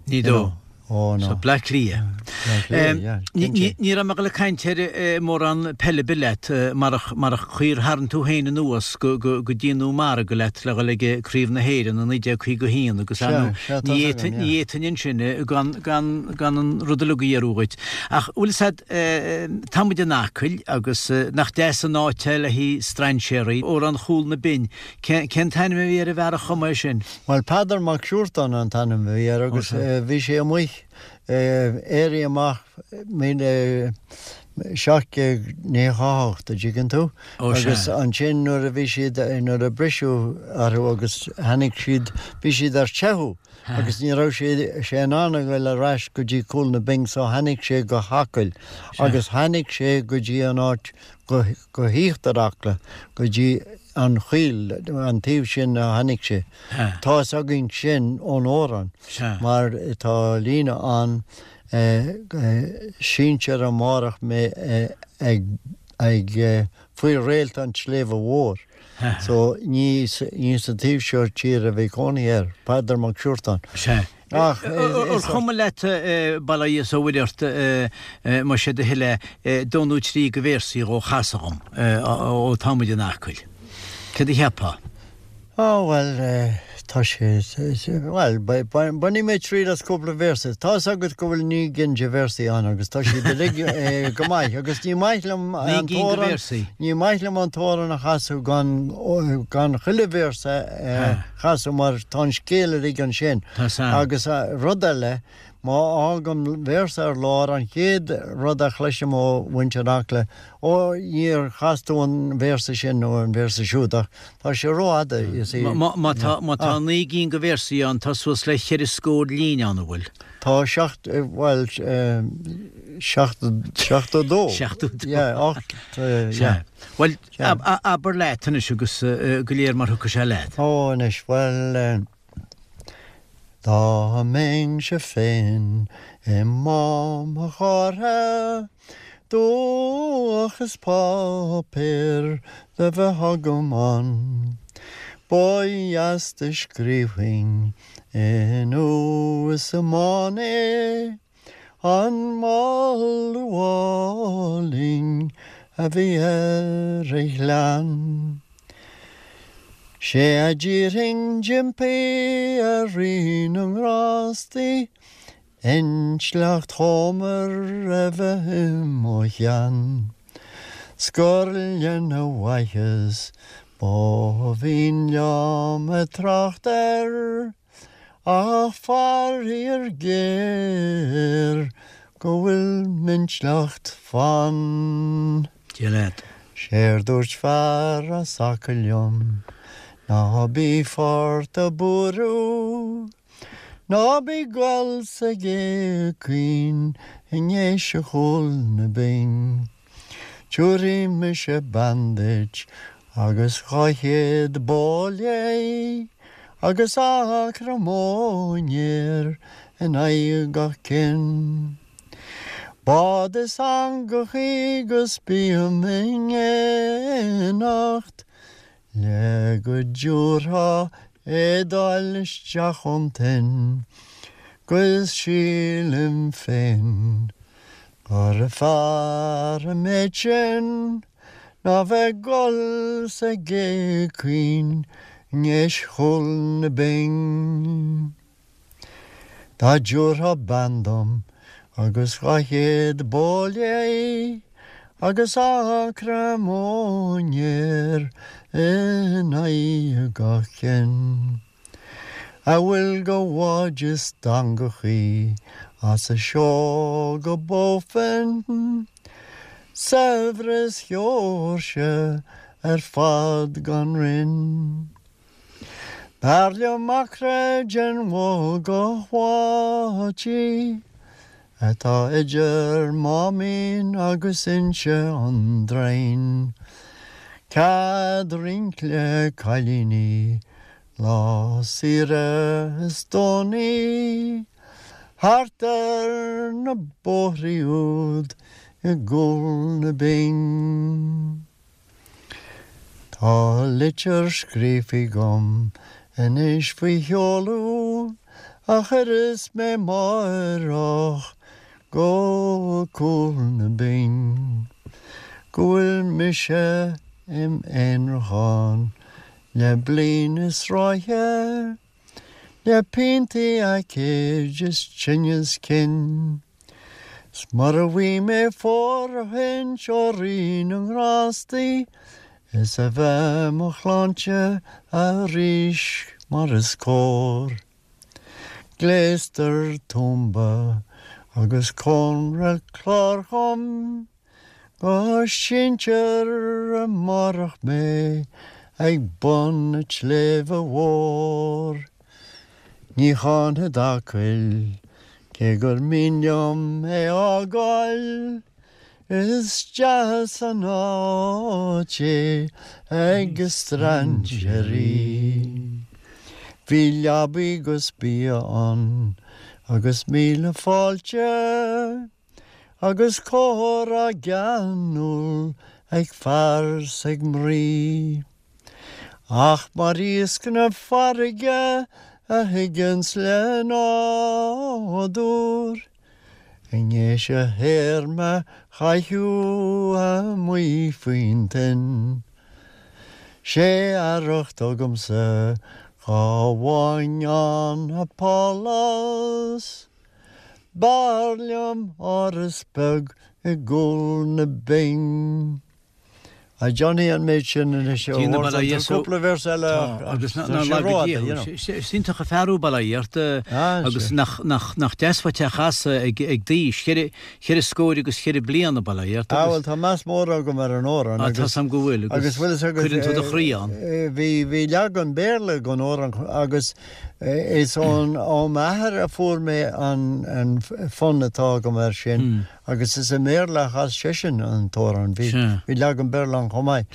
Speaker 3: Ní dóigh.
Speaker 2: Ó no.
Speaker 3: So Bleá Cliath.
Speaker 2: Bleá Cliath, yeah, cinnte.
Speaker 3: Ní raibh mé ag dul ag caint ar mórán peile ar bith leat marach marach chaoi ar tharraing tú féin anuas go go go dtí an margadh leat le dhul ag Craobh na hÉireann i 1951 agus ar ndóigh ní fhéadfainn ní fhéadfainn ansin gan gan gan an rud uilig a fhiafraí dhuit. Ach bhfuil fhios a'd tá muid in Acaill agus nach deas an áit é le haghaidh strainséaraí, Amhrán Chúl na Binne Cén t-ainm a bhí ar an bhfear a chum é sin?
Speaker 2: Bhuel, Peadar Mac Siúrtáin an t-ainm a bhí air agus bhí sé amuigh éirí amach 1798, a dtuigeann tú, agus ansin nuair a bhí siad, nuair a briseadh orthu agus tháinig siad, bhí siad ar teitheadh agus ní raibh sé in ann a ghoil ar ais go dtí Cúl na Binne so tháinig sé go hAcaill agus tháinig sé go dtí an áit, go híochtar Acla, go dtí. An Choill, an taobh sin a tháinig sé. Tá fhios againn sin ón amhrán mar tá líne ann, Síntear amárach mé ag faoi réalt an tSléibhe Mhóir. So ní sa taobh seo tíre a bhí cónaí air, Peadar Mac Siúrtáin.
Speaker 3: Ach ar chuma leat, bail ó Dhia is ó Mhuire ort, más é do thoil é, dó nó trí de véarsaí dhó a chasadh dhom, ó tá muid in Acaill. Céard a cheapfá?
Speaker 2: Á, bhuel, tá sé, bhuel, bainfidh mé triail as cúpla véarsa. Tá fhios agat go bhfuil 9 gcinn de véarsaí ann agus tá siad uilig go maith agus ní maith liom an t-amhrán, ní maith liom an t-amhrán a chasadh gan, gan chuile véarsa a chasadh mar tá an scéal uilig ansin. Agus rud eile, má fhágaim véarsa ar lár, an chéad rud a chloisim ó mhuintir Acla, Ó, níor chas tú an véarsa sin nó an véarsa siúd ach tá sé rófhada, you see.
Speaker 3: Má tá 9 gcinn de véarsaí ann, tá suas le cheithre scór líne ann, an bhfuil?
Speaker 2: Tá seacht, bhuel, 72.
Speaker 3: 72.
Speaker 2: Yeah, ocht, yeah.
Speaker 3: Bhuel, abair leat anois agus go léir mar thiocfaidh sé leat.
Speaker 2: Ó, anois, bhuel, dá mbeinnse féin i Mám an Chártha, Dúch is páipéar le bheith agam ann, Ba dheas do scríobfainn i ndubh is i mbán é, An moladh álainn a bhí ar a ghleann. 'Sé a d'iarrfainn d'impí ar Rí na nGrástaí, Intleacht Homer a bheith i mo cheann 's gur lena mhaitheas ba mhian liom a' trácht air ach faraor géar go bhfuil m'intleacht fann.
Speaker 3: Dia leat.
Speaker 2: 'Séard dúirt fear as Acaill liom ná bí fort a' buaireamh. Ná bí ag gol sa gcé caoin i nDéise Chúl na Binn. Tiúrfaidh mise bean duit agus 200 bó léi agus acra móinéir in aghaidh gach cinn. Bád is eangachaí 'gus bím in éineacht Le go dtiúrfá éadáil isteach ón toinn 'Gus sílim féin gur fearr an méid sin Ná bheith ag gol sa gcé caoin i nDéis Chúl na Binn. Dá dtiúrfá bean dom agus 200 bó léi agus acra móinéir in aghaidh gach cinn, a bhfuil de bháid is d'eangachaí as a seó go Bofin, saibhreas Sheoirse ar fad gan roinn. B'fhearr liom acra den Bhogach Bháití atá idir Máimín agus Inse an Draighin. Cead rince le cailíní lá saoire is Domhnaí thart ar na bóithrí úd i gCúl na Binn. Tá litir scríofa agam anois faoi sheoladh a chuirfeas mé amáireach go Cúl na Binn, go bhfuil mise im aonrachán le bliain is ráithe, le piontaí aicíd is tinneas cinn. 'S mura bhfaighidh mé fóirithint ó Rí na nGrástaí is a bheith mo shláinte arís mar is cóir. Gléastar tuamba agus cónra cláir dhom. Go síntear amárach mé ag bun an tsléibhe mhóir. Ní cháinfead Acaill cé gur mian liom é fhágáil. Is deas an áit é ag strainséirí. Bhí leabaí 'gus bia ann agus míle fáilte agus comhrá geanúil ag fear 's ag mnaoi. Ach mar iasc na farraige a thigeanns le nádúr, I ndéis a théarma chaitheamh amuigh faoin toinn. 'Sé arracht agamsa dhá bhfaighinn ann a pálás, B'fhearr liom áras beag i gcúl na binne. A Johnny an méid sin anois ó
Speaker 3: Déanamh
Speaker 2: tá cúpla véarsa eile
Speaker 3: ach agus tá sé rófhada, you know. Is iontach an fear thú, bail ó Dhia ort, agus nach deas uait é a chasadh ag d'aois, cheithre scór agus cheithre bliana, bail ó Dhia ort.
Speaker 2: Ah bhuel tá meas mór agam ar an amhrán
Speaker 3: agus. Tá 's a'm go bhfuil agus cuireann tú do chroí ann.
Speaker 2: Bhí bhí leagan Béarla den amhrán agus is ón ó m'athair a fuair mé an fonn atá agam air sin. Agus is i mBéarla a chas seisean an t-amhrán. Bhí bhí leagan Béarla ann chomh maith.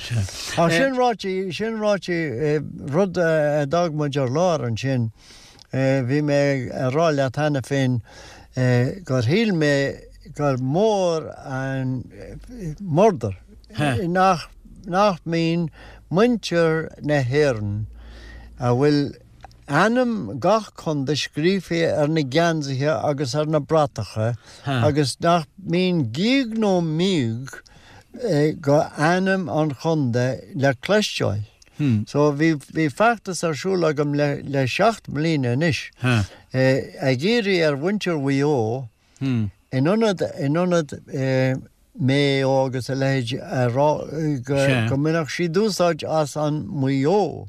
Speaker 2: Ach sin ráite, sin ráite, rud a d'fhág muid ar lár ansin, bhí mé ag rá leat cheana féin gur shíl mé gur mór an murdar nach nach mbíonn muintir na hÉireann a bhfuil ainm gach contae scríofa ar na geansaithe agus ar na bratacha agus nach mbíonn gíog nó míog go ainm an chontae le cloisteáil. So bhí bhí feachtas ar siúl agam le le seacht mbliana anois ag iarraidh ar mhuintir Mhaigh Eo In ionad, in ionad Mayo agus a leithéid a rá go mbainfeadh siad úsáid as an Maigh Eo.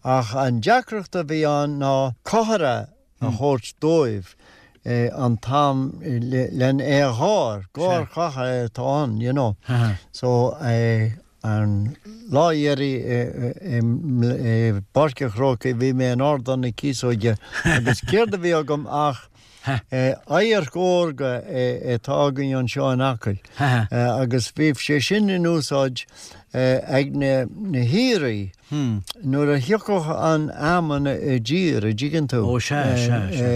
Speaker 2: Ach an deacracht a bhí ann ná cuthair a thabhairt dóibh an t-am len é a gháir, gáir chatha atá ann, you know. So An lá dheiridh i bPáirc an Chrócaigh bhí mé in Ardán na Cíosóige agus céard a bhí agam ach adharc órga atá againn anseo in Acaill agus bhí sé sin in úsáid ag na haoirí nuair a thiocfadh an fheamainn i dtír, a dtuigeann tú,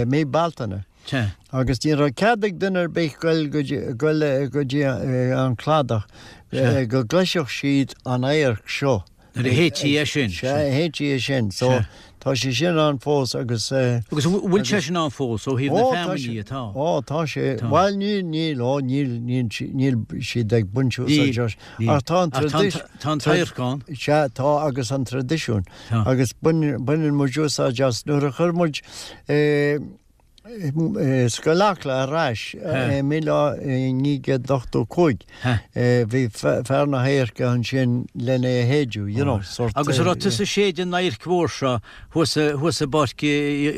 Speaker 2: mí Bealtaine.
Speaker 3: Sea.
Speaker 2: Agus ní raibh cead ag duine ar bith goil go dtí, goil go dtí an cladach go gcloisfeadh siad an adharc seo.
Speaker 3: Nuair a shéidtí é sin.
Speaker 2: Sea, a shéidtí é sin. So, tá sé sin ann fós agus.
Speaker 3: Agus an bhfuil sé sin ann fós ó thaobh na feamainní atá?
Speaker 2: Ó, tá sé. Bhuel, níl, níl, ó, níl, níl, níl siad ag baint úsáid as. Ach tá an
Speaker 3: traidisiún. Tá an t-adharc ann.
Speaker 2: Sea, tá agus an traidisiún. Agus baineann muid úsáid as nuair a chuir muid Scoil Acla ar ais i 1985. Bhí fear na hadhairce ansin len é a shéideadh, you know,
Speaker 3: sort. Agus an raibh tusa ag séideadh an adhairc mhór seo thuas thuas i bPáirc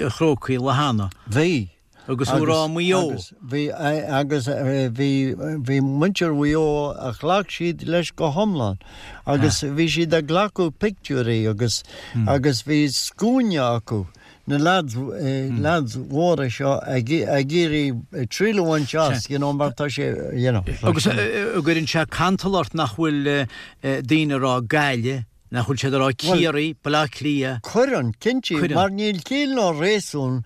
Speaker 3: an Chrócaigh lá cheana?
Speaker 2: Bhí.
Speaker 3: Agus thú ag rá Maigh Eo.
Speaker 2: Agus bhí agus bhí bhí muintir Mhaigh Eo a ghlac siad leis go hiomlán agus bhí siad ag glacadh pictiúirí agus agus bhí scuaine acu na lads, lads mhóra seo ag iarraidh triail a bhaint as, you know, mar tá sé, you know.
Speaker 3: Agus an gcuireann sé cantal ort nach bhfuil daoine ag rá Gaillimh, nach bhfuil siad ag rá Ciarraí, Baile Átha Cliath?
Speaker 2: Cuireann, cinnte, mar níl ciall ná réasún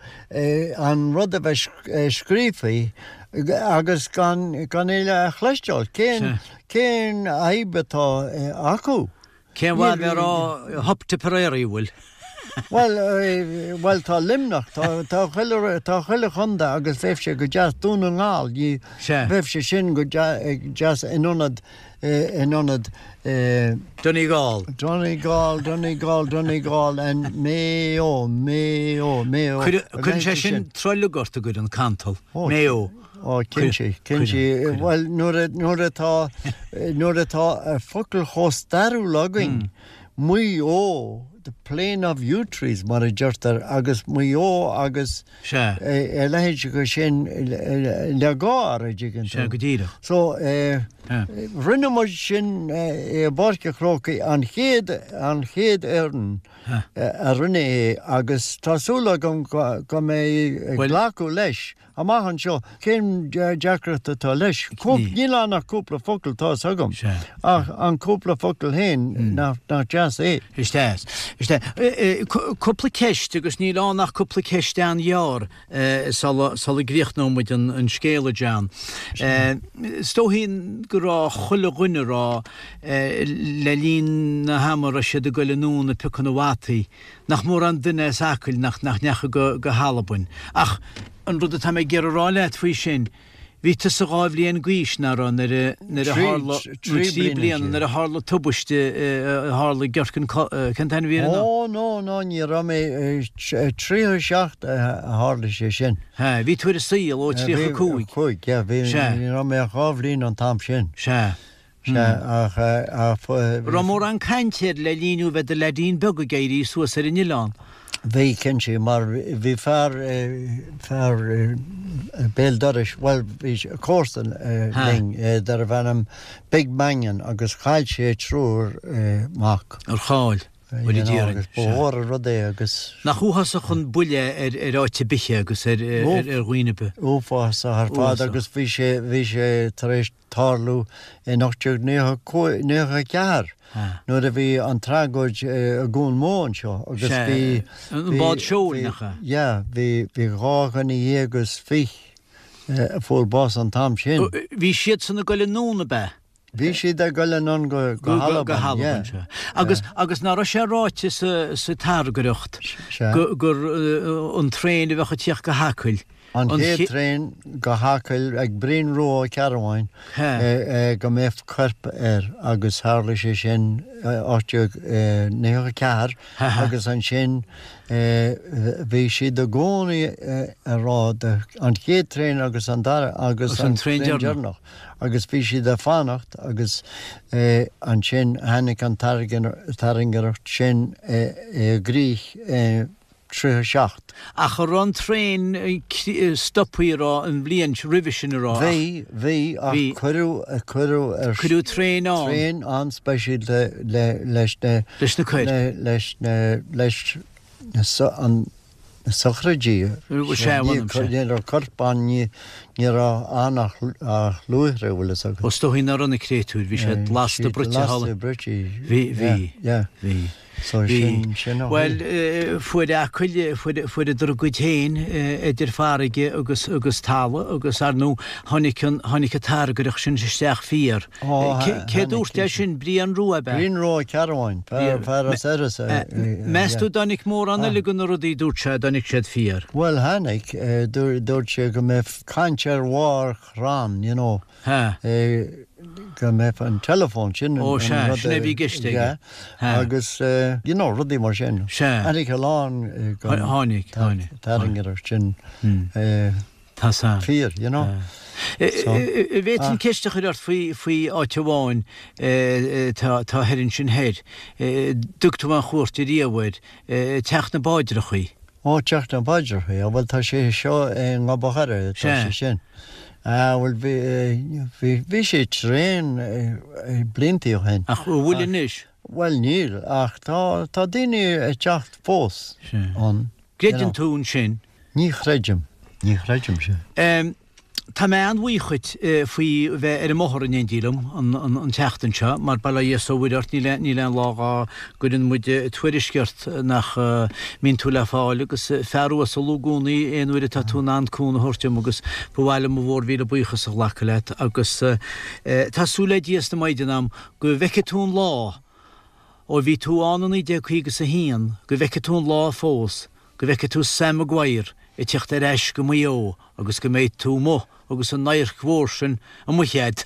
Speaker 2: an rud a bheith scríofa agus gan gan é a chloisteáil. Cén, cén fhadhb atá acu?
Speaker 3: Cén mhaith a bheith ag rá Hup Tipperary, bhfuil?
Speaker 2: Bhuel, bhuel tá Luimneach, tá, tá chuile, tá chuile chontae agus bheadh sé go deas Dún na nGall, ní, bheadh sé sin go deas in ionad, in ionad.
Speaker 3: Donegal.
Speaker 2: Donegal, Donegal, Donegal and Mayo, Mayo, Mayo.
Speaker 3: Cuireann sé sin trolg ort, an gcuireann, cantal, Mayo.
Speaker 2: Ó, cinnte, cinnte. Bhuel, nuair nuair atá, nuair atá focal chomh stairiúil againn, Maigh Eo, the plain of yew trees, mar a deirtear, agus Maigh Eo agus a leithéid de sin le gáir, a dtuigeann tú.
Speaker 3: Sea, go díreach.
Speaker 2: So, rinne muid sin i bPáirc an Chrócaigh, an chéad, an chéad fhoireann a rinne é agus tá súil agam go mbeidh glacadh leis. Amach anseo, cén deacracht atá leis? Níl ann ach cúpla focal, tá 'fhios agam. Ach an cúpla focal féin, nach deas é?
Speaker 3: Is deas. Is deas. Cúpla ceist, agus níl ann ach cúpla ceist an-ghearr sula gcríochnóidh muid an scéal, a John. Is dóichí go raibh chuile dhuine a raibh le linn na hama a raibh siad ag goil anonn ag piocadh na bhfataí, nach mórán duine as Acaill nach ndeachaigh go hAlbain. Ach an rud atá mé ag iarraidh a rá leat faoi sin, bhí tusa 2 bhliain d'aois, nach raibh, nuair a, nuair a tharla, nó 3 bliana, nuair a tharla tubaiste a tharla i gCirceann, cén t-ainm a bhí ar an.
Speaker 2: Ó, no, no, ní raibh mé, 37 a tharla sé sin.
Speaker 3: Sea, bhí tú ar an saol ó 35.
Speaker 2: 5, yeah, bhí, ní raibh mé ach 2 bhliain an t-am sin.
Speaker 3: Sea.
Speaker 2: Sea, ach, ach.
Speaker 3: Raibh mórán cainte air le linn thú bheith i do leaidín beag ag éirí suas ar an oileán.
Speaker 2: Bhí, cinnte, mar bhí fear, fear béal dorais, bhuel, bhí comharsan linn darbh ainm Big Mannion agus chaill sé triúr mac.
Speaker 3: Ar chaill? Bhuel, a déarfainn.
Speaker 2: Ba mhór an rud é agus.
Speaker 3: Nach uafásach an buille ar áit ar bith é agus ar dhaoine ar bith.
Speaker 2: Uafásach ar fad agus bhí sé, bhí sé tar éis tarlú in 1894 nuair a bhí an tragóid i gCuan Mó anseo agus bhí.
Speaker 3: An bád seoil, nach ea?
Speaker 2: Yeah, bhí 12 dhuine a fuair bás an t-am sin.
Speaker 3: Bhí siadsan ag goil anonn, ab ea?
Speaker 2: Bhí siad ag goil anonn go
Speaker 3: Albain, yeah. Agus, agus nach raibh sé ráite sa, sa tairngreacht gur an traein a bheadh ag tíocht go hAcaill,
Speaker 2: An chéad traein go hAcaill ag Brian Rua Ó Cearbháin go mbeadh corp air agus tharla sé sin 1894 agus ansin bhí siad i gcónaí ag rá an chéad traein agus an dara agus an traein deireanach agus bhí siad ag fanacht agus ansin tháinig an tairngreacht sin i gcrích i 37.
Speaker 3: Ach an raibh an traein stopthaí a raibh an bhliain roimhe sin a raibh ach.
Speaker 2: Bhí, bhí, ach cuireadh, cuireadh
Speaker 3: ar. Cuireadh traein ann.
Speaker 2: Traein an-speisialta le, leis na.
Speaker 3: Leis na coirp.
Speaker 2: Leis na, leis na, an, na sochraidí.
Speaker 3: Sea, bhfuil
Speaker 2: Ní, ní raibh corp ann, ní, ní raibh ann ach, ach luaithre, bhfuil fhios agat.
Speaker 3: Ó is dóichí nach raibh na créatúir, bhí siad lasta bruite thall.
Speaker 2: Lasta bruite.
Speaker 3: Bhí, bhí,
Speaker 2: yeah,
Speaker 3: bhí.
Speaker 2: So sin, sin a
Speaker 3: Bhuel, fuair Acaill, fuair, fuaireadar a gcuid féin idir farraige agus, agus talamh agus, ar ndóigh, tháinig an, tháinig an tairngreacht sin isteach fíor.
Speaker 2: Ó,
Speaker 3: Cé dúirt é sin? Brian Rua, ab
Speaker 2: ea? Brian Rua Ó Cearbháin, fear, fear as Iorras.
Speaker 3: Meas tú dtáinig mórán eile de na rudaí a dúirt sé, dtáinig siad fíor?
Speaker 2: Bhuel, tháinig, dúirt sé go mbeadh caint ar bharr chrann, you know.
Speaker 3: Ha.
Speaker 2: Go mbeadh an teileafón, sin an
Speaker 3: rud. Ó sea, sin é a bhí i gceist aige.
Speaker 2: Ha. Agus, you know, rudaí mar sin.
Speaker 3: Sea.
Speaker 2: Tháinig a lán
Speaker 3: den. Tháinig, tháinig.
Speaker 2: Tairngreacht sin.
Speaker 3: Tá san.
Speaker 2: Fíor, you know.
Speaker 3: An bhféadfainn ceist a chur ort faoi, faoi áit amháin atá thoir ansin thoir. Dtug tú aon chuairt ariamh air, Teach na bPáidreachaí.
Speaker 2: Ó, Teach na bPáidreachaí, á bhuel tá sé seo i nGob a' Choire, tá sé sin. Ah, bhuel bhí, bhí, bhí sé tréan bliantaí ó shin.
Speaker 3: Ach an bhfuil anois?
Speaker 2: Bhuel níl, ach tá, tá daoine ag teacht fós
Speaker 3: ann. Gcreideann tú ansin?
Speaker 2: Ní chreidim, ní chreidim
Speaker 3: sin. Tá mé an-bhuíoch dhuit faoi bheith ar an mbóthar in éindí liom an tseachtain seo, mar bail ó Dhia 's ó Mhuire ort, níl níl aon lá dhá gcuireann muid tuairisc ort nach mbíonn tú le fáil agus fear uasal i gcónaí aon uair atá tú in ann cúnamh a thabhairt dom agus ba mhaith liom mo mhór mhíle buíochas a ghlacadh leat agus tá súil le Dia 's na Maighdean a'm go bhfeicfidh tú an lá ó bhí tú ann i 1951 go bhfeicfidh tú an lá fós go bhfeicfidh tú Sam Maguire ag teacht ar ais go Maigh Eo agus go mbeidh tú amuigh agus an adharc mhór sin amuigh a'd.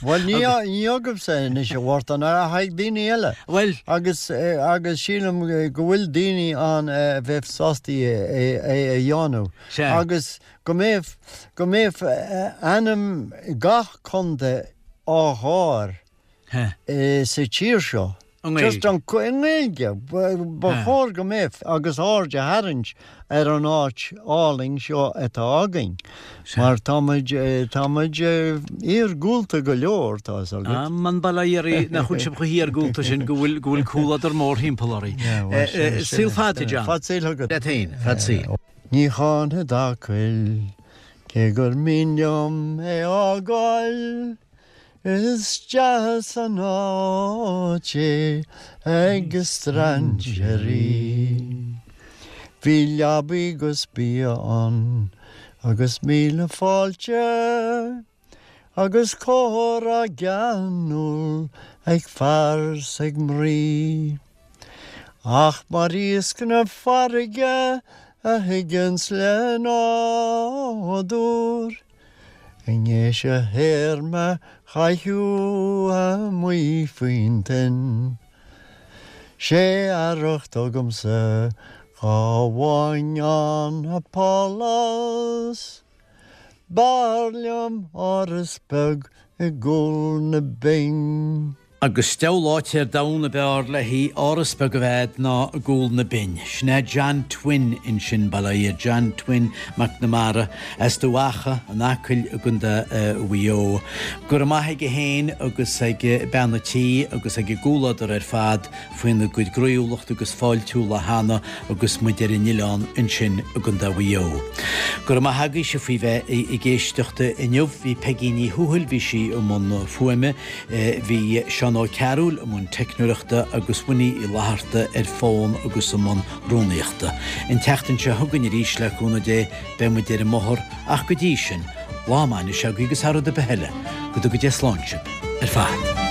Speaker 2: Bhuel, ní agaibhse anois, a Mhártain, ach ag daoine eile.
Speaker 3: Bhuel.
Speaker 2: Agus, agus sílim go bhfuil daoine ann a bheadh sásta é a dhéanamh.
Speaker 3: Sea.
Speaker 2: Agus go mbeadh, go mbeadh ainm gach contae á chur sa tír seo.
Speaker 3: I nGaeilge.
Speaker 2: I nGaeilge. Ba chóir go mbeadh agus aird a tharraingt ar an áit álainn seo atá againn. Mar tá muid, tá muid iargúlta go leor, tá fhios
Speaker 3: agat. Aman bail ó Dhia oraibh nach bhfuil sibh chomh hiargúlta sin go bhfuil, go bhfuil comhluadar mórthimpeall oraibh. Saol fada, John.
Speaker 2: Fad saoil agat.
Speaker 3: Leat féin, fad saoil.
Speaker 2: Ní cháinfead Acaill. Cé gur mian liom é fhágáil, is deas an áit é ag strainséirí. Bhí leabaí 'gus bia ann agus míle fáilte agus comhrá geanúil ag fear 's ag mnaoi. Ach mar iasc na farraige a thigeanns le nádúr, I ndéis a théarma chaitheamh amuigh faoin toinn. 'Sé arracht agamsa dhá bhfaighinn ann a pálás, B'fhearr liom áras beag i gCúl na Binne.
Speaker 3: Agus deabhal áit ar domhan ab fhearr léi áras beag a bheith ná i gCúl na Binne. Sin é John Twin ansin, bail ó Dhia air, John Twin McNamara, as Dumha Acha, an Acaill i gContae Mhaigh Eo. Go raibh maith aige féin agus ag bean a' tí agus ag a gcomhluadar ar fad faoina gcuid groíúlachta agus fáiltiúla cheana agus muid ar an oileán ansin i gContae Mhaigh Eo. Go raibh maith agaibhse faoi bheith ag éisteacht inniu. Bhí Peigí Ní Thuathail, bhí sí i mbun fuaime. Bhí Seán Ó Cearúil i mbun teicneoireachta agus Winnie Uí Fhlatharta ar fón agus i mbun rúnaíochta. An tseachtain seo chugainn arís, le cúnamh Dé, beidh muid ar an mbóthar ach go dtí sin, lá maith anois agaibh agus thar rud ar bith eile, go dtuga Dia slán sibh ar fad.